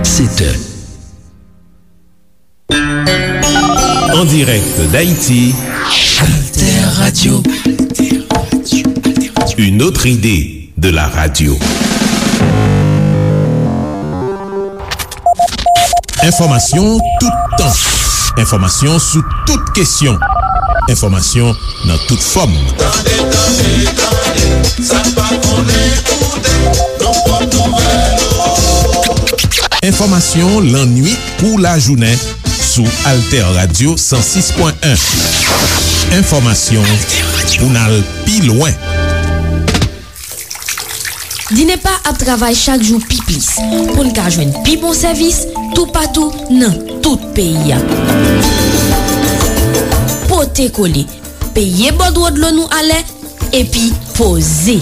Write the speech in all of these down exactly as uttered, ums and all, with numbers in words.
C'était en direct d'Haïti, Alter Radio. Une autre idée de la radio. Enfòmasyon toutan. Enfòmasyon sou tout kesyon. Enfòmasyon nan tout fòm. Tande, tande, tande, sa n pa konnen koute, nou pot nouvèl. Enfòmasyon lannwit kou lajounen sou Alter Radio san sis pwen en. Enfòmasyon pou n al pi lwen. Dinepa ap travay chak jou pi plis pou n ka jwenn pi bon sèvis toupatou nan tout peyi a. Pote kole, peye bòdwo dlo nou alè, epi poze.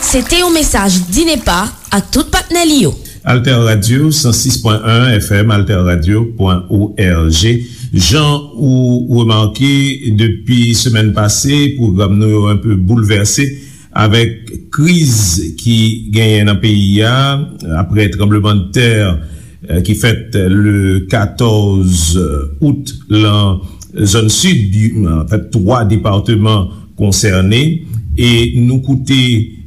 Se te yon mesaj Dinepa ak tout patnè li yo. Alter Radio, san sis pwen en F M, alter radio pwen O R G. Jan ou remake, depi semèn pase, pwogram nou yo enpe boulvèse avèk kriz ki genyen nan peyi a, apre tranblemanntè, eh, ki fèt le katòz out lan zòn sid, anfèt, twa depatman konsène, e nou koute,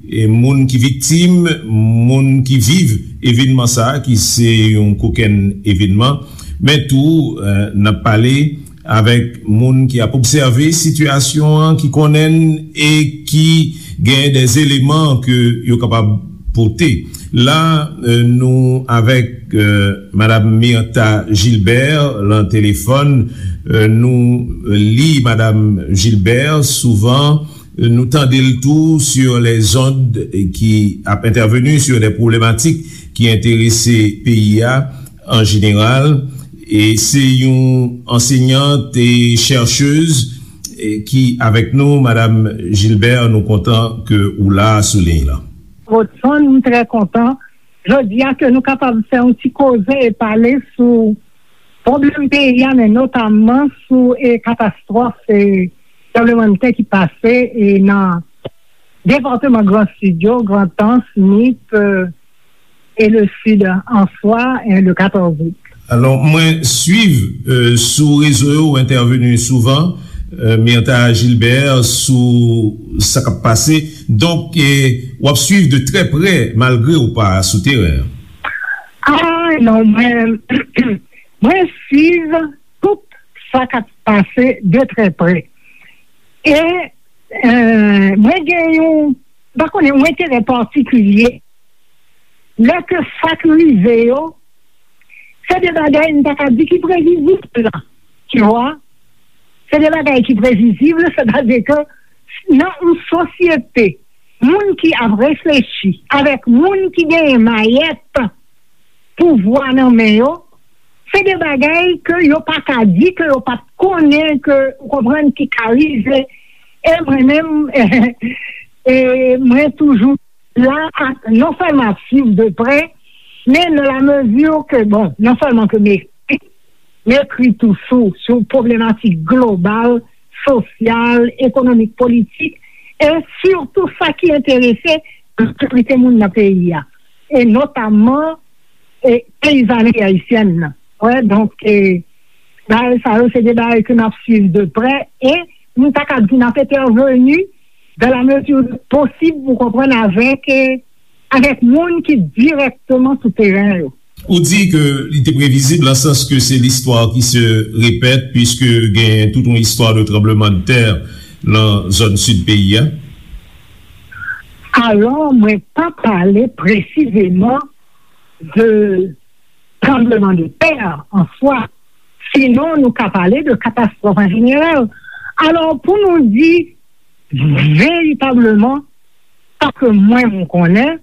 e, moun ki viktim, moun ki viv evènman sa a, ki se yon kokenn evènman, men tou, eh, n ap pale avèk moun ki ap obsève sitiyasyon an, ki konnen l e ki gen de eleman ke yo kapab pote. La, eh, nou avèk, eh, Madam Myrtha Gilbert lan telefòn. Eh, nou li Madam Gilbert souvan, eh, nou tande l tou sur les ondes, eh, ki ap entèveni sur des problématiques ki enterese peyi a an jeneral. E se yon ansèyant e chèchèz, eh, ki avèk nou. Madam Gilbert, nou kontan ke ou la sou liy lan. Rodson, m trè kontan jodi a ke nou kapab fè yon ti koze e pale sou pwoblèm peyi a, men notamman sou, e, katastwòf, e, tranblemanntè ki pase, e, nan depatman Gran Sid yo, Grandans, Nip, e, e le Sid an swa, e, le katòz out. Alò, mwen swiv, e, sou rezo yo, ou entèveni souvan, e, Myrtha Gilbert, sou sa k ap pase. Donk, e, w ap swiv de trè prè, malgre ou pa sou teren an. Ah, non, mwen, mwen swiv tout sa k ap pase de trè prè. E, e, mwen gen yon, m pa konnen, yon enterè patikilye. Lè ke sa k rive yo, se de bagay m ta ka di ki previzib la, tu vois. Se de bagay ki previzib, sètadi ke nan yon sosyete, moun ki ap reflechi avèk moun ki genyen mayèt pouvwa nan men yo, se de bagay ke yo pa ka di ke yo pa t konnen, ke, ou konprann, ki ka rive. E mwen menm, e mwen toujou la, a, non sèlman ap swiv de prè, men nan la mezi ke, bon, non sèlman ke m ekri, m ekri tou sou, sou pwoblematik global, sosyal, ekonomik, politik, e sitou sa ki enterese majorite moun nan peyi a, e notamman, e peyizanri ayisyèn nan. Wè, donk, e, bagay sa yo, se de bagay ke n ap swiv de prè, e nou ta ka di n ap entèveni dans la mesure du possible, ou konprann, avèk, e, avèk moun ki dirèkteman sou teren yo. Ou di ke li te previzib, nan sans ke se l'histoire qui se répète, puisque gen tout yon istwa de tranblemanntè nan zòn sid peyi a. Alò, mwen pa pale presizeman de tranblemanntè an swa. Sinon, nou ka pale de katastwòf an jeneral. Alò, pou nou di veritableman, sa ke mwen, mwen konnen,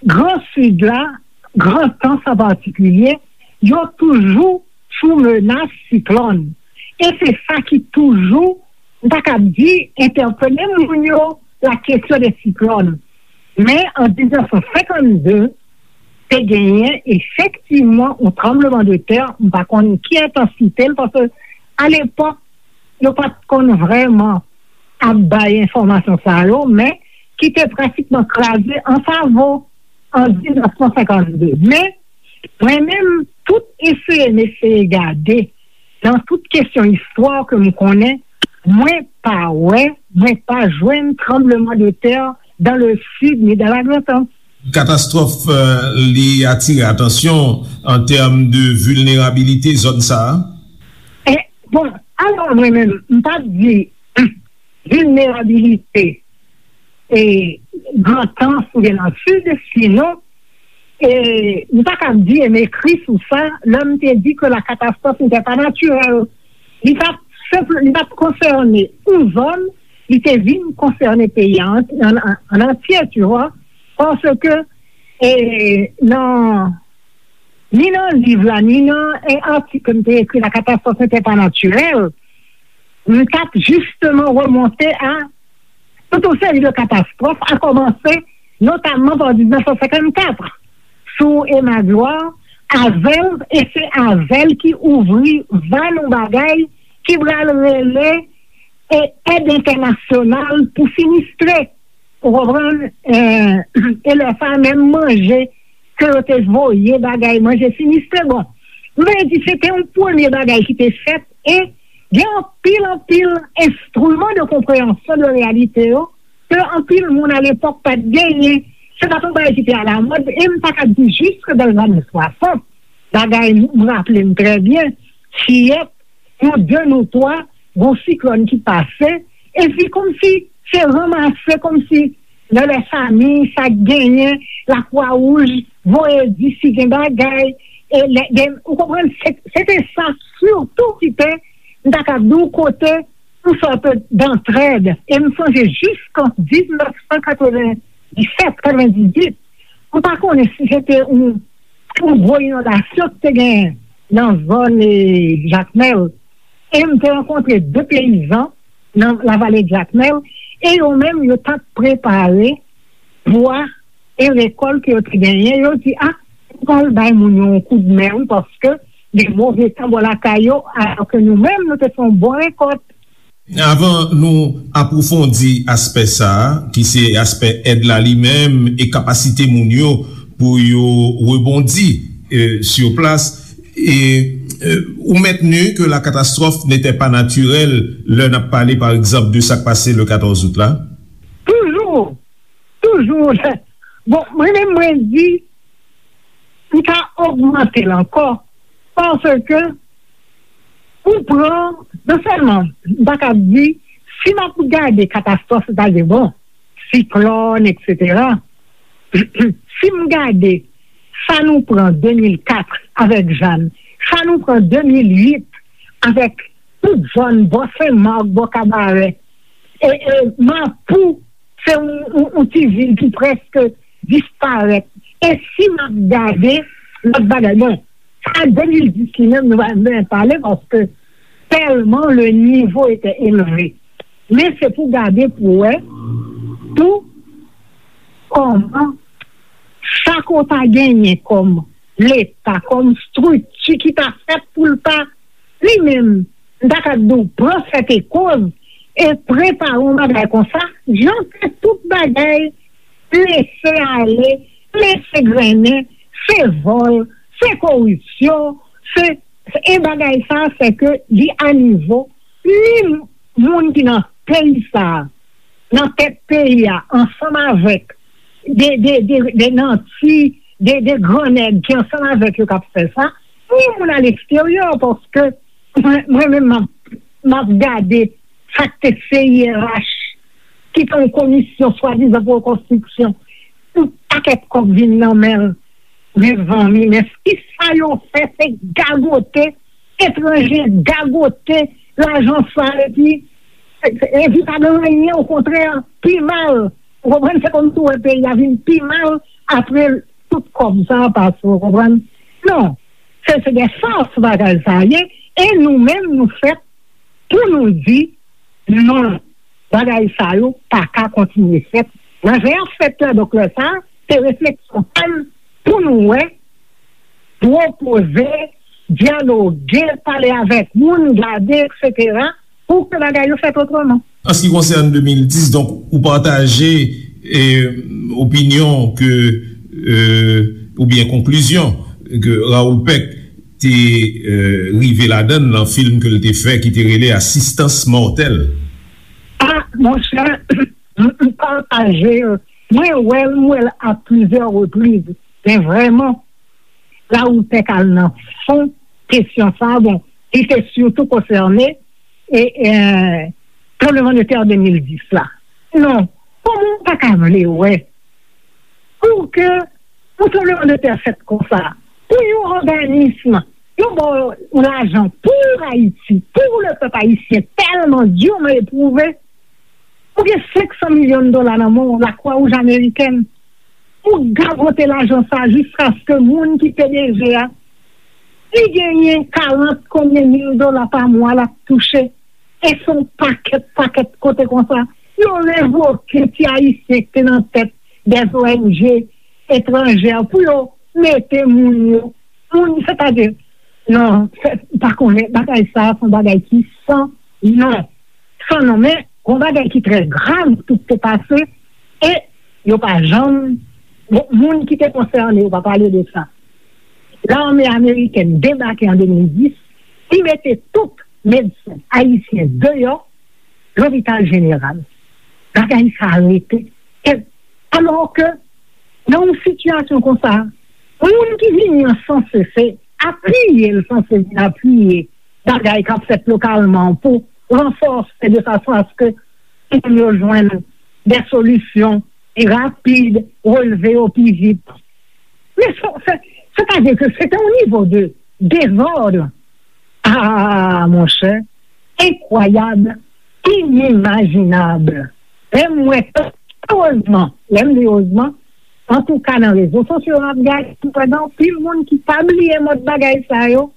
Gran Sid la, Grandans an patikilye, yo toujou sou menas siklòn. E se sa ki toujou, m ta kab di, entèpele moun yo, la kesyon de siklòn. Men, an diznèf san senkannde, te genyen efektivman yon tranblemanntè, m pa konn ki entansite l, paske alepòk, yo pa t konn vrèman ap bay enfòmasyon sa yo, men ki te pratikman kraze an savo an diznèf san senkannde. Men, mwen menm, tout eseye m eseye gade nan tout kesyon istwa ke m konnen, mwen pa wè, mwen pa jwenn tranbleman de tè dans le sud ni dans la Grande Anse. Katastwòf, euh, li atire atansyon an tèm de vilnerabilite zòn sa a? E, bon, alò mwen menm, m p ap di vilnerabilite e Grandans oubyen nan Sid, sinon, e, m ta ka di e m ekri sou sa, lè m te di ke la catastrophe n'était pas naturelle. Li pa senp, li pa konsène yon zòn, li te vin konsène peyi a an, an, an antye, tu vois, paske, e, nan, ni nan liv la, ni nan, e, atik ke m te ekri, La catastrophe n'était pas naturelle, m t ap jisteman remonte a tout yon seri de katastwòf, a kòmanse notamman pa diznèf san senkannkat, sou Emma Gloire, avè l, e se avè l ki ouvri van yon bagay ki pral rele e èd entènasyonal pou sinistre. Ou konprann? E, e lè sa a, menm manje ke yo te voye, bagay manje sinistre. Bon, m vle di, se te yon premye bagay ki te fèt, e gen anpil, anpil enstriman de konpreyansyon de reyalite yo ke anpil moun alepòk pa t genyen. Se pa t yon bagay ki te alamòd, e m ta ka di jiske dan lane swasant. Bagay, m raple m trè byen, fiyèt, nou de, nou twa, gon siklòn ki pase, epi kòmsi se ranmase, kòmsi nan lè fami, sa k genyen, Lakwa Wouj voye di si gen bagay, e lè, gen, ou konprann, se, se te sa sitou ki te, m ta ka di w, kote yon sòt dantrèd. E m sonje jiskan diznèf san katrevenndisèt, katrevendizuit, m pa konnen si se te yon, yon gwo inondasyon ki te genyen nan zòn, e, Jakmèl. E m te rankontre de peyizan nan lavale Jakmèl, e yo menm, yo t ap prepare bwa e rekòl ke yo te genyen. Yo di, "A, nou pral bay moun yo yon koudmen, wi, paske gen move tan bò lakay yo, alò ke nou menm, nou te fè yon bon rekòt." Avan nou apwofondi aspè sa a, ki se aspè èd la li menm e kapasite moun yo pou yo rebondi, e, sur place, e, e, ou maintenu que la catastrophe n'était pas naturelle lè n ap pale, pa egzanp, de sa k pase le katòz out la? Toujou, toujou. Bon, mwen menm, mwen di, m ka ogmante l ankò, paske ou pran, non sèlman, m pa ka di, si m ap gade katastwòf, sètadi, bon, siklòn, etsetera, si m gade sa nou pran de mil kat avèk Jeanne, sa nou pran de mil uit avèk tout zòn bò Sen Mak, bò Kabarè, e, e Mapou, se yon, yon, yon ti vil ki prèske disparèt. E si m ap gade lòt bagay, bon, sa de mil dis li menm, nou pa menm pale, paske tèlman le nivo etè elve. Men se pou gade pou wè tou kòman sa ke w ta genyen kòm Leta, kòm estrikti ki ta fèt pou l ta li menm, m ta ka di w, pran sète koz e prepare yon bagay konsa, jan ke tout bagay lese ale, lese grennen, se vòl, se koripsyon, se, e bagay sa, se ke li a nivo ni moun ki nan peyi sa, nan tèt peyi a, ansanm avèk de, de, de, de nanti, de, de gran nèg ki ansanm avèk yo k ap fè sa, ni moun aleksteryè, paske mwen, mwen menm, m ap, m ap gade sa k te C I R H, ki te yon komisyon swadizan pou rekonstriksyon, yon pakèt kòb vin nan men l. Mezanmi, men kisa yo fè? Se gagote, etranje gagote lajan sa, epi, epi pa gen anyen, okontrè, pi mal. Ou konprann? Se kòmsi w wè peyi a vin pi mal apre tout kòb sa a pase, ou konprann? Non, se, se de fas bagay sa a ye, e nou menm, nou fèt pou nou di, non, bagay sa yo pa ka kontinye fèt. Nan jan y ap fèt la, donk lè sa a, se refleksyon pa m pou nou wè, pwopoze, dyaloge, pale avèk moun, gade, etsetera, pou ke bagay yo fèt otreman. An se ki konsène de mil dis, donk, ou pataje, e, opinyon ke, e, oubyen konklizyon ke Raoul Peck te, e, rive ladan l nan fim ke l te fè ki te rele Asistans Mòtèl. Ah, monchè, m pataje l. Mwen wè l, m wè l a plizyè repriz. Men vrèman, Raoul Peck al nan fon kesyon sa a. Bon, li te sitou konsène e, e, tranblemanntè de mil dis la. Non, kòman w pa ka vle wè pou ke yon tranblemanntè fèt konsa, pou yon òganism, yo ba w lajan pou Ayiti, pou le pèp ayisyen tèlman diman epwouve, ou gen senk san milyon dola nan men w, Lakwawouj Amerikèn, ou gagote lajan sa jiskaske moun ki P D G a, li genyen karant konbyen mil dola pa mwa l ap touche. E se yon pakèt, pakèt kote konsa. Yo revoke ti Ayisyen ki te nan tèt dè O N G etranjè pou yo mete moun yo. Moun, sètadi, non, m pa konnen, bagay sa a se yon bagay ki san non. San non, men yon bagay ki trè grav, tout te pase, e yo pa janm, bon, moun ki te konsène yo pa pale de sa. Lame amerikèn debake an de mil dis, li mete tout medsen ayisyen deyò lopital jeneral. Bagay sa a rete. E, alò ke, nan yon sitiyasyon konsa, moun ki vini an sanse se apiye l sanse vin apiye bagay k ap fèt lokalman pou ranfòse de fason aske moun yo jwenn de solisyon pi rapid, relve yo pi vit. Men se, se, sètadi ke se te yon nivo de dezòd. Ah, monchè, enkwayab, inimajinab. Lè m wè, erezman, lè m di erezman, antouka nan rezo sosyo m ap gade, m wè gen anpil moun ki pa bliye mòd bagay sa yo,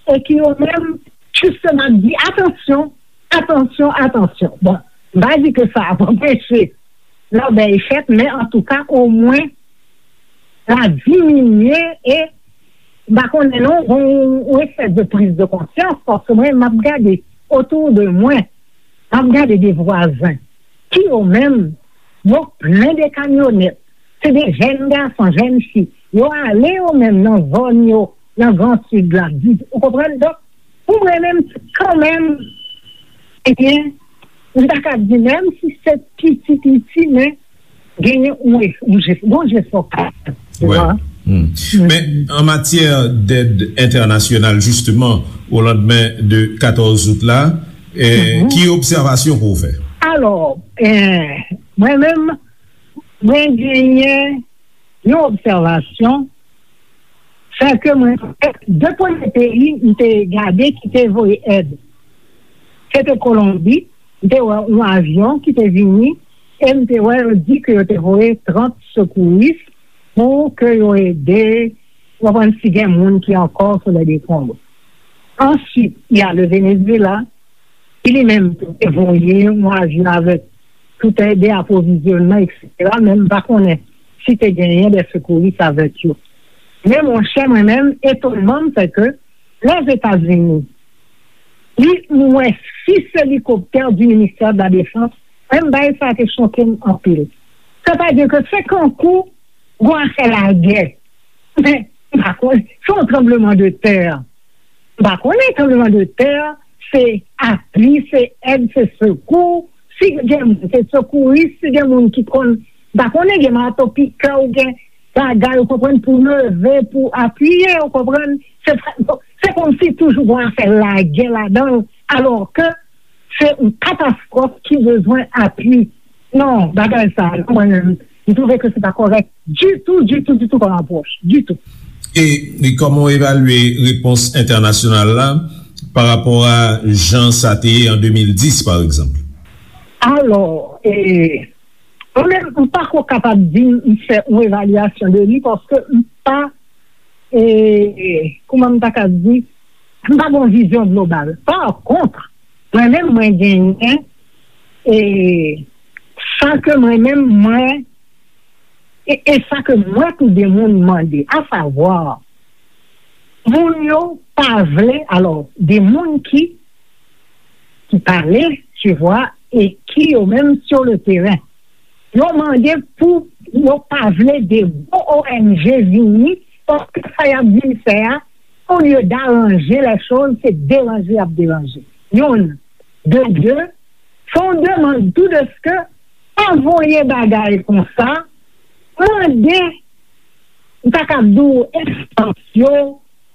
e ki yo menm, jisteman, ap di, atansyon, atansyon, atansyon. Bon, m pa di ke sa ap anpeche lòbèy fèt, men antouka, omwen, la diminye e, m pa konnen non, yon, yon espès de priz de konsyans, paske mwen, m ap gade otou de mwen, m ap gade de vwazen, ki yo menm, yo plen de kamyonèt, se de jèn gason, jèn fi, yo ale yo menm nan zòn yo, nan Gran Sid la, di, ou konprann? Donk, pou mwen menm, kanmenm, ebyen, m ta ka di, menm si se piti, piti, men genyen yon, yon jefò, yon jefò. Men an matyè dèd entènasyonal, jisteman, o landmen de katòz out la, eh, ki obsèvasyon ke w fè? Alò, eh, mwen menm, mwen genyen yon obsèvasyon, sèke mwen, de premye peyi m te gade ki te voye èd, se te Kolonbi. M te wè yon avyon ki te vini, e m te wè yo di ke yo te voye trant sekouris pou ke yo ede, w konprann, si gen moun ki ankò sou lè dekonb. Answit, y a le Venezuela, ki li menm tou te voye yon avyon avèk tout èd, apwovizyònman, etsetera, men m pa konnen si te genyen de sekouris avèk yo. Men monchè, mwen menm, etonman m, se ke Lèzetazini, li, m wè sis elikoptè di ministè de la defans, menm bagay sa te choke m anpil. Sètadi ke se kankou gon afè lagè. Men, m pa konnen, se yon tranbleman de tè. M pa konnen tranbleman de tè, se apui, se èd, se sekou. Si gen moun, se sekouris, si gen moun ki konn, m pa konnen, gen mato pikè ou gen bagay, ou konprann, pou leve, pou apiye, ou konprann. Se, se kòmsi toujou gon afè lagè ladan l, alò ke se yon katastwòf ki bezwen apui. Non, bagay sa, mwen menm, m twouve ke se pa kòrèk ditou, ditou, ditou kòm apwòch, ditou. E, e kòman w evalye repons entènasyonal la pa rapò a jan sa te ye an de mil dis, pa egzanp? Alò, e, mwen menm, m pa ko kapab di m fè yon evalyasyon de li, paske m pa, e, kòman m ta ka di, m pa gen yon vizyon global. Pa kont, mwen menm, mwen genyen, e, sa ke mwen menm, mwen, e, e sa ke mwen tou de moun mande, asavwa, moun yo pa vle, alò, de moun ki, ki pale, tu vois, e ki yo menm sur le terrain. Yo mande pou yo pa vle de gwo O N G vini, paske sa y ap vin fè a, olye daranje lè choz, se deranje y ap deranje. Youn, de de, fè yon demann tou deske pa voye bagay konsa, mande, m ta kab di w, enstans yo,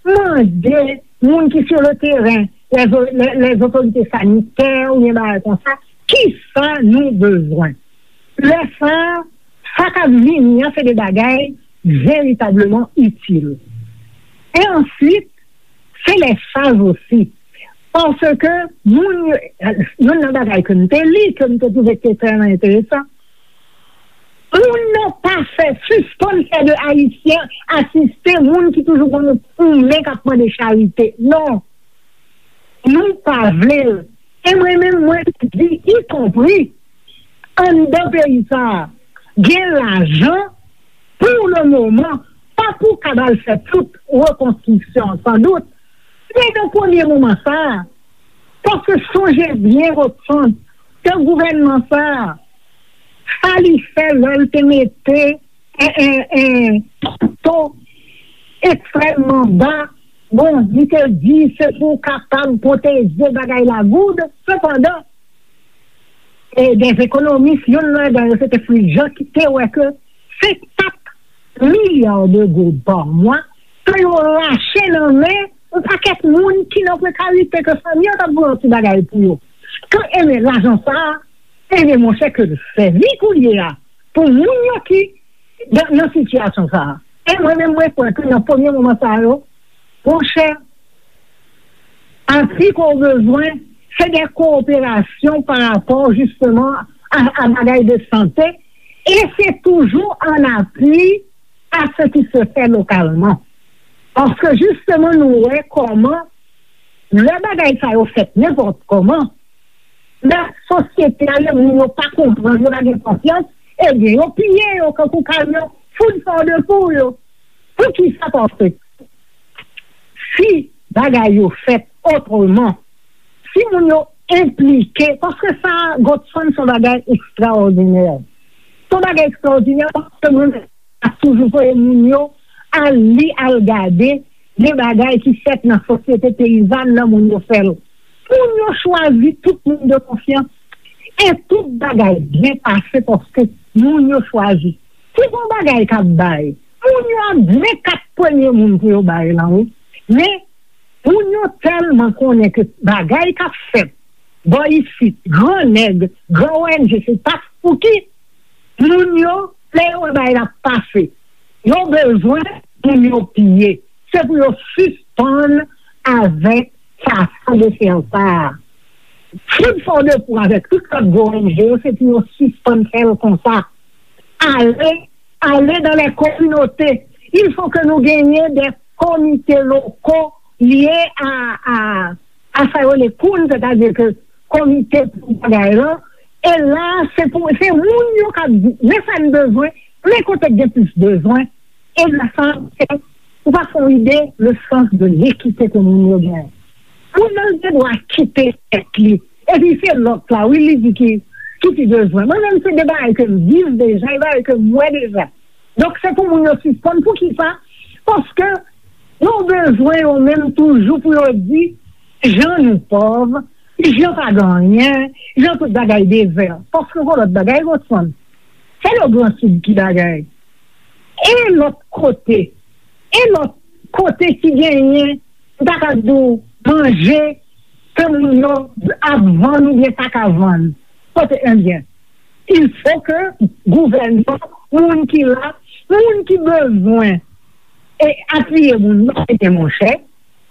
mande moun ki sou le teren, lè zo- lè- lè otorite sanitè oubyen bagay konsa, kisa nou bezwen. Lè sa, sa k ap vini an, se de bagay veritableman itil. E answit, se lè chaj osi. Paske moun yo, youn nan bagay ke m te li, ke m te twouve ki te trè enteresan, moun nan pa fè, sispann fè de Ayisyen asiste moun ki toujou gon yon men k ap mande charite. Non. Nou pa vle l. E mwen menm, mwen di, ikonpri anndan peyi sa a, gen lajan pou le moman, pa pou kab al fè tout rekonstriksyon an, sandout. Men nan premye moman sa a, paske sonje byen, Godson, ke gouvènman sa a, sa li fè lè l te mete en, en, en, to ekstrèmman ba. Bon, li te di se pou kapab pwoteje bagay la goud. Sepandan, e, dè ekonomis, youn ladan yo, se te Fritz Jean, ki te wè ke se kat milya de goud pa mwa ke yo rache nan men yon pakèt moun ki nan prekarite, ke fanmi yo t ap voye yon ti bagay pou yo. Ke, ebyen, lajan sa a, ebyen, monchè, ke l sèvi kounye a pou moun yo ki nan, nan sitiyasyon sa a. E mwen menm, mwen kwè ke nan premye moman sa yo, monchè, apui ke w bezwen, se de kowoperasyon pa rapò, jisteman, a, a bagay de sante, e se toujou an apui a ce qui se fait localement. Paske, jisteman, nou wè kòman lè bagay sa yo fèt nenpòt kòman, lè sosyete a, lè moun yo pa konprann, yo pa gen konfyans, ebyen, yo piye yo kankou kamyon, food for the poor yo. Poukisa? Paske si bagay yo fèt otreman, si moun yo enplike, paske sa, Godson, se yon bagay ekstraòdinè. Se yon bagay ekstraòdinè, paske mwen ap toujou voye moun yo al li, al gade de bagay ki fèt nan sosyete peyizàn nan, moun yo fè l. Moun yo chwazi tout moun de konfyans. E tout bagay byen pase paske moun yo chwazi. Si gon bagay k ap bay, moun yo ap byen kat premye moun pou yo bay lan, wi. Men, moun yo tèlman konnen ke bagay k ap fèt bò isit, gran nèg, gran O N G, se pa pou ki moun yo, lè yo wè bagay la pase, yo bezwen moun yo piye. Se pou yo sispann avèk fason de fè sa a. Food for the poor avèk tout lòt gwo O N G yo, se pou yo sispann fè l konsa. Ale, ale dans les communautés. Il faut que nous gagnions des comités locaux liés à, à, à sa yo rele koun, sètadi ke komite pou bagay lan. E la, se pou, se moun yo k ap di, men sa n bezwen, men kote k gen plis bezwen. E la, sa, se, ou pa fè yon ide, le sens de l'équité ke moun yo gen. Moun nan gen dwa kite tèt li. Epi se lòt la, wi, li di ki, ki pi bezwen. Mwen menm, se de bagay ke m viv deja, e bagay ke m wè deja. Donk, se pou moun yo sispann. Poukisa? Paske yo bezwen yo menm toujou pou yo di, jan nou pòv, jan pa gen anyen, jan tout bagay dezè. Paske gon lòt bagay, Godson, se le Gran Sid ki bagay. E lòt kote, e lòt kote ki genyen, m ta ka di w, manje ke moun yo ap vann oubyen pa ka vann. Kote, ebyen, il faut que gouvènman, moun ki la, moun ki bezwen e apiye moun yo, ebyen, monchè,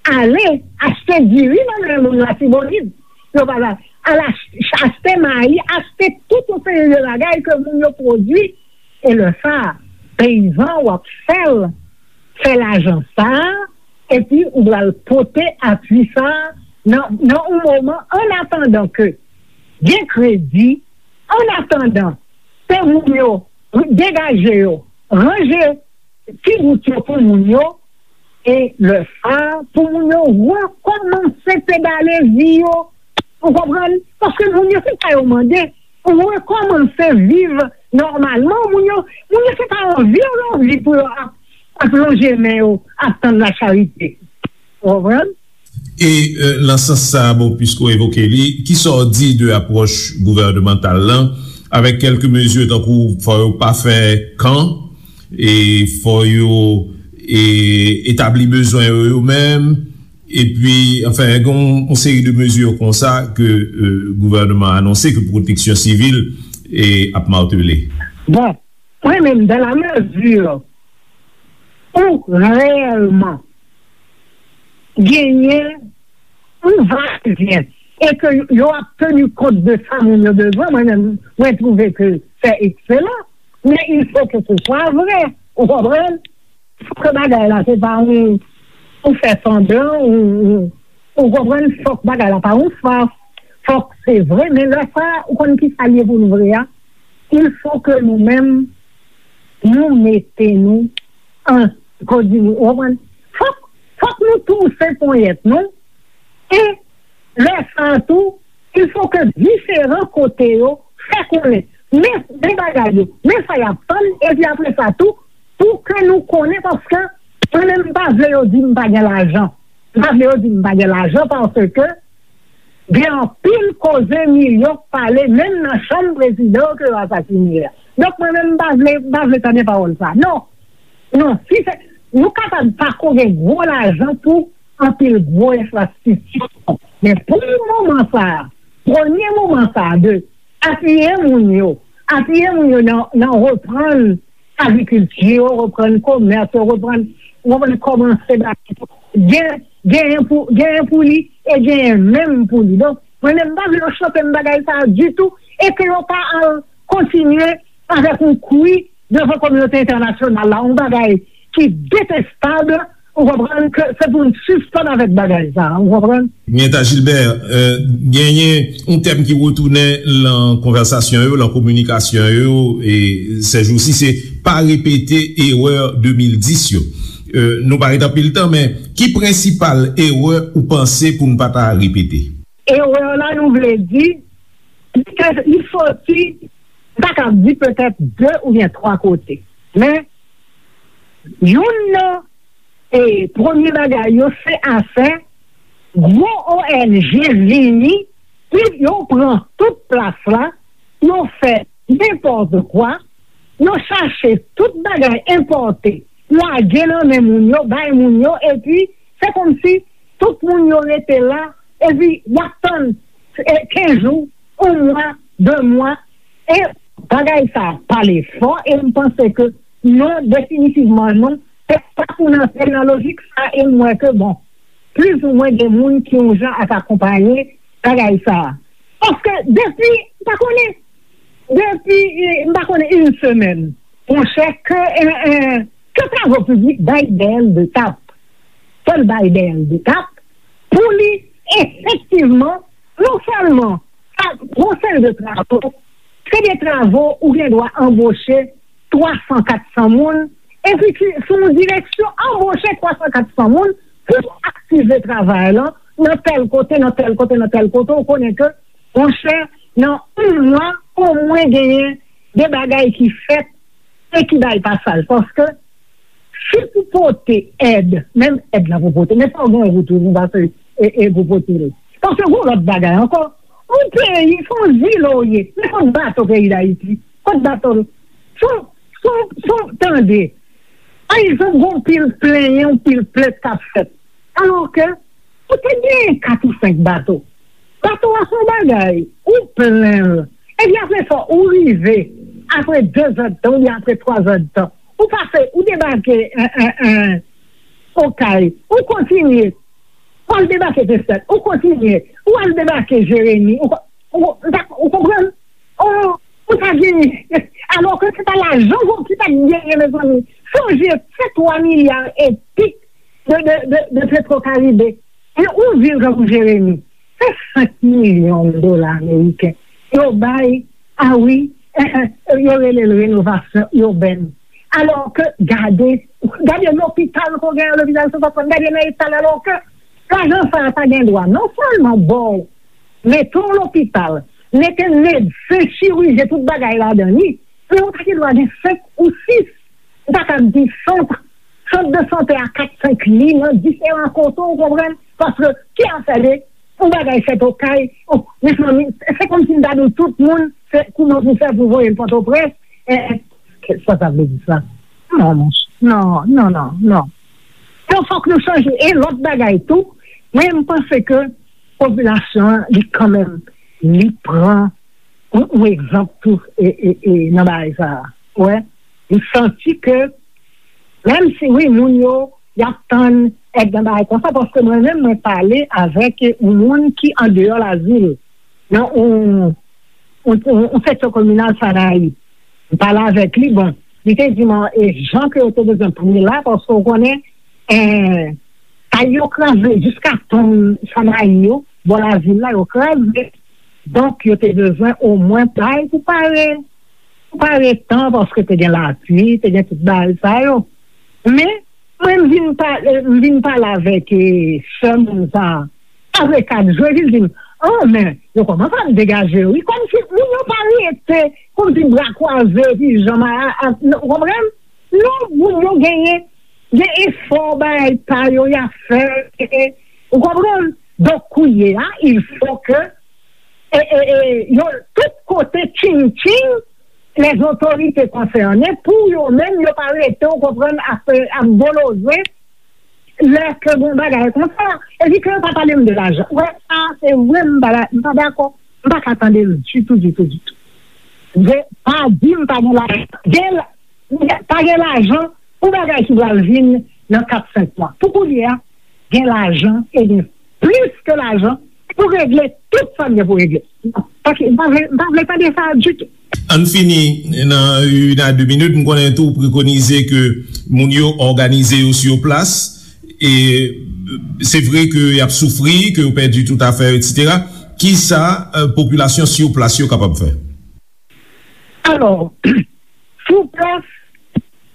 ale achte diri nan men moun Latibonit. Yo pa la, al ach- achte mayi, achte tout yon seri de bagay ke moun yo pwodui. E lè sa a, peyizan w ap fè l, fè lajan sa a, epi ou pral pote apui sa a nan, nan yon moman, an atandan ke gen kredi, an atandan ke moun yo degaje yo, ranje ti bout yo pou moun yo, e lè sa a, pou moun yo rekòmanse pedale vi yo, ou konprann? Paske moun yo, se sa yo mande, rekòmanse viv Nòmalman, moun yo, moun yo se pa anvi yo anvi pou yo ap, ap lonje men yo, ap tann lacharite. Ou konprann? E, euh, nan sans sa, bon, piske w evoke li, kisa w di de apwòch gouvènemantal lan, avèk kèlke mezi tankou fò yo pa fè kan, e fò yo, e, etabli bezwen yo yo menm, epi, anfen, gen yon, yon seri de mezi konsa ke, euh, gouvènman anonse, ke pwoteksyon sivil, e, ap matele. Bon, mwen menm, dans la mesure ou reyèlman genyen yon vayevyen e ke yo ap teni kont de sa moun yo bezwen, mwen menm, mwen twouve ke c'est excellent, mais il faut que ce soit vrai, ou konprann? Fòk ke bagay la se pa yon, ou fè sanblan, ou, ou, ou konprann, fòk bagay la pa yon fas, fòk se vre, men lè sa, ou konn ki sa l ye pou n vre a? Il faut que nou menm, nou mete nou an, kòdi nou, ou konprann? Fòk, fòk nou touse ponyèt nou, e lè sa a tou, il faut que diferan kote yo fè konnen, men, men bagay yo, men sa y ap tann, epi apre sa tou, pou ke nou konnen, paske mwen menm, m pa vle yo di m pa gen lajan. M pa vle yo di m pa gen lajan, paske gen anpil koze milyon k pale, menm nan chanm prezidan ke yo asasine a. Donk, mwen menm, m pa vle, m pa vle tande pawòl sa. Non. Non, si se, nou kapab pa ko gen gwo lajan pou anpil gwo enfrastrikti. Men pou moman sa a, premye moman sa a de apiye moun yo, apiye moun yo nan, nan reprann agrikilti yo, reprann komès yo, reprann, reprann kòmanse ba gen, genyen pou, genyen pou li e genyen menm pou li. Donk, mwen menm, m pa vle yo chanpe m bagay sa a ditou e ke yo pa al kontinye avèk yon kwi devan kominote entènasyonal la, yon bagay ki detestab, ou konprann, ke se pou n sispann avèk bagay sa, ou konprann? Mienta Gilbert, euh, genyen yon tèm ki retounen lan konvèsasyon yo, lan kominikasyon yo, e sèjousi, se pa repete erè de mil dis yo. Euh, nou pa ret anpil tan, men ki prensipal erè ou panse pou n pa ta repete? Erè la, nou vle di, li te, li soti, m ta kab di petèt de oubyen twa kote. Men, youn nan, e, premye bagay yo, se afè gwo O N G vini, pi yo pran tout plas la, yo fè nenpòt kwa, yo chache tout bagay enpòte, lage nan men moun yo, bay moun yo, epi se kòmsi tout moun yo rete la, epi y ap tann, e, kenz jou, yon mwa, de mwa, e bagay sa pale fò, e m panse ke non, definitivman non, se pa pou n antre nan lojik sa, e m wè ke, bon, plizoumwen gen moun ki yon jan ap akonpaye bagay sa. Paske depi, m pa konnen, depi, eh, m pa konnen, yon semèn, monchè, ke, eh, eh, ke Travo Piblik bay Dèyèl de tap. Fò l bay Dèyèl de tap pou li efektivman, non sèlman, sa, gon seri de travo, se de travo ou gen dwa anboche twa san, kat san moun, epi ki, sou yon direksyon, anboche twa san, kat san moun pou aktive travay lan nan tèl kote, nan tèl kote, nan tèl kote, ou konnen ke, monchè, nan yon mwa, omwen genyen de bagay ki fèt e ki bay pasaj. Paske, si pou pote èd, menm èd la pou pote, men fò w gen wout wi pou pase e, e pou pote l. Paske gon lòt bagay ankò, yon peyi, se yon zile w ye, men kot bato peyi Dayiti? Kot bato l? Se yon, se yon, se yon, tande, pa egzanp, gon pil plenyen, yon pil plent k ap fèt. Alò ke, ou te genyen kat ou senk bato. Bato a se yon bagay, ou plen l. Epi apre sa, ou rive, apre de zè d tan, oubyen apre twa zè d tan, ou pase, ou debake, en, en, en, Okay, ou kontinye, ou al debake Pestèl, ou kontinye, ou al debake Jeremi, ou, ou, ou, ou konprann? Ou, ou pa genyen. Alò ke se pa lajan ki pa t genyen, mezanmi. Sonje, se twa milya e pik de, de, de, de Petro Caribe. E yon vil tankou Jeremi, se senk milyon dola ameriken yo bay, a wi, eh, eh, yo rele l renovasyon iben. Alò ke, gade, gade lopital ke w gen an, lopital Sen Antwàn, gade nan eta l, alò ke lajan sa a ta gen dwa non sèlman ba w, mete w lopital, mete medsen, chirijyen, tout bagay ladan li, Men ou ta gen dwa gen senk ou sis. Ou ta ka di sant, sant de sante a kat, senk li nan diferan kote, ou konprann? Paske ki afè de yon bagay fèt Okay, oh, mezanmi, se kòmsi m ta di w tout moun, se kouman pou fè pou voye l Pòtoprens, eh, sa sa vle di sa? Non, monchè. Non, non, non, non. Donk, fòk nou chanje. E lòt bagay tou, mwen, m panse ke popilasyon an, li kanmenm, li pran yon, yon egzanp tou, e, e, e, nan bagay sa a. Wè, li santi ke, menm si, wi, moun yo, y ap tann èd nan bagay konsa, paske mwen menm, mwen pale avèk yon moun ki andeyò Lazil, nan yon, yon, yon, yon seksyon kominal Sanayi. M pale avèk li, bon, li te di mwen, e jan ke yo te bezwen pran la, paske w konnen, eh, kay yo kraze, jiska tonm Sanayi yo, bò Lazil la, yo kraze. Donk, yo te bezwen omwen kay pou pare, pou pare tan, paske te gen lapli, te gen tout bagay sa yo. Men, mwen, m vin pale, m vin pale avèk, eh, sè moun sa a. Apre kat jou, epi l di m, oh, men, yo kòmanse ap degaje yo. Wi, kòmsi moun yo pa rete, kòmsi bra kwaze, epi janm a, a, a, ou konprann? Non, moun yo genyen, gen efò, bagay pa yo, y ap fè, e, e, ou konprann? Donk, kounye a, il faut que, e, e, e, yo, tout kote, tching, tching, les autorités concernées, pou yo menm, yo pa rete, ou konprann, ap, ap boloze, lè ke gon bagay konsa, epi ke yo pa pale m de lajan. Wè, sa, se vre, m pa, m pa dakò. M pa ka tande l ditou, ditou, ditou. Vre, pa di m pa gen lajan. Gen la-, pa gen lajan pou bagay ki pral vin nan kat, senk mwa. Pou kounye a, gen lajan e gen plis ke lajan pou regle tout sa n gen pou regle. Pa ki, m pa vle, m pa vle tande sa ditou. Ann fini nan une à deux minutes. M konnen tou w prekonize ke moun yo òganize yo sur place. E se vre ke y ap soufri, ke yo pèdi tout afè yo, etsetera. Kisa, eh, popilasyon sur place yo kapab fè? Alò, sur place,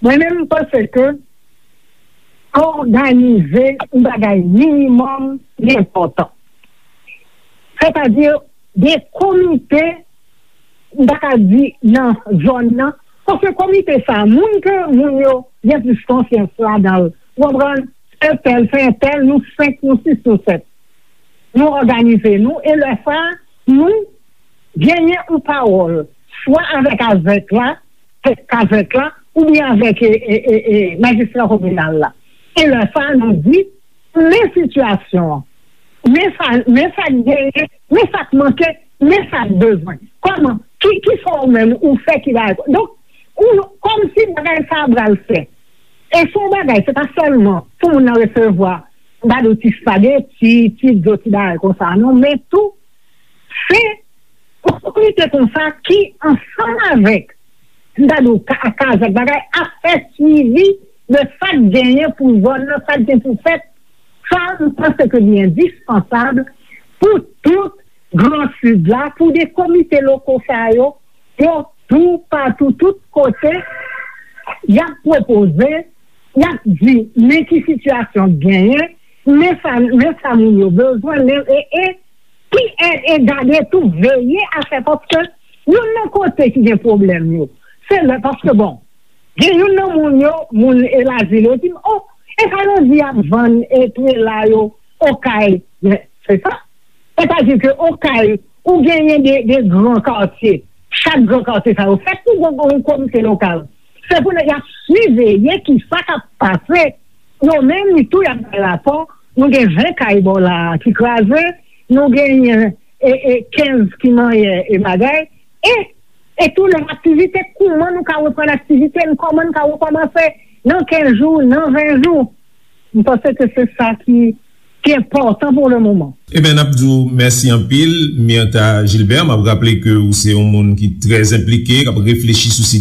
mwen menm, m panse ke òganize yon bagay minimòm li enpòtan. Sètadi, de komite, m ta ka di nan zòn nan, paske komite sa, moun ke moun yo gen plis konfyans ladan l, ou konprann, entèl, se entèl, nou senk, nou sis, nou sèt. Nou òganize nou, e lè sa, nou genyen yon pawòl, swa avèk avèk la, kazèk la, oubyen avèk, e, e, e, e, majistra kominal la. E lè sa, nou di, men sitiyasyon an, men sa, men sa k genyen, men sa k manke, men sa k bezwen. Kòman, ki, ki sa ou menm ou fè ki bay? Donk, ou, kòmsi bagay sa a pral fè. E se yon bagay, se pa sèlman pou moun nan resevwa, m pa di w ti spageti, ti dlo, ti bagay konsa, non, men tou, se otorite konsa ki ansanm avèk, m ta di w, ka, kazèk bagay, ap fè swivi de sa k genyen pou zòn nan, sa k gen pou fèt. Sa, m panse ke li endispansab pou tout Gran Sid la, pou de komite loko sa yo, yo tou, patou, tout kote, y ap pwopoze, y ap di, men ki sitiyasyon k genyen, men sa, men sa moun yo bezwen, men, e, e, ki e, e gade tou, veye a fè, paske youn nan kote ki gen pwoblèm yo, se lè, paske bon, gen youn nan moun yo, moun e Lazil yo di m, oh, e sa yo di y ap vann e prela yo Okay. Men, se sa. Sètadi ke Okay, ou genyen de, de gran katye. Chak gran katye sa yo fèt pou gon, gon komite lokal. Se pou nèg y ap siveye ki sa k ap pase. Yo menm tou y ap bay rapò. Nou gen ven kay bò la a ki kraze. Nou genyen, e, e, kenz ki manyen e bagay. E, e tou lòt aktivite, kòman nou ka reprann aktivite n, kòman n ka rekòmanse nan kenz jou, nan ven jou. M panse ke se sa ki, ki enpòtan pou le moman. Eben, n ap di w mèsi anpil, Myrtha Gilbert. M ap raple ke ou se yon moun ki trè enplike, k ap reflechi sou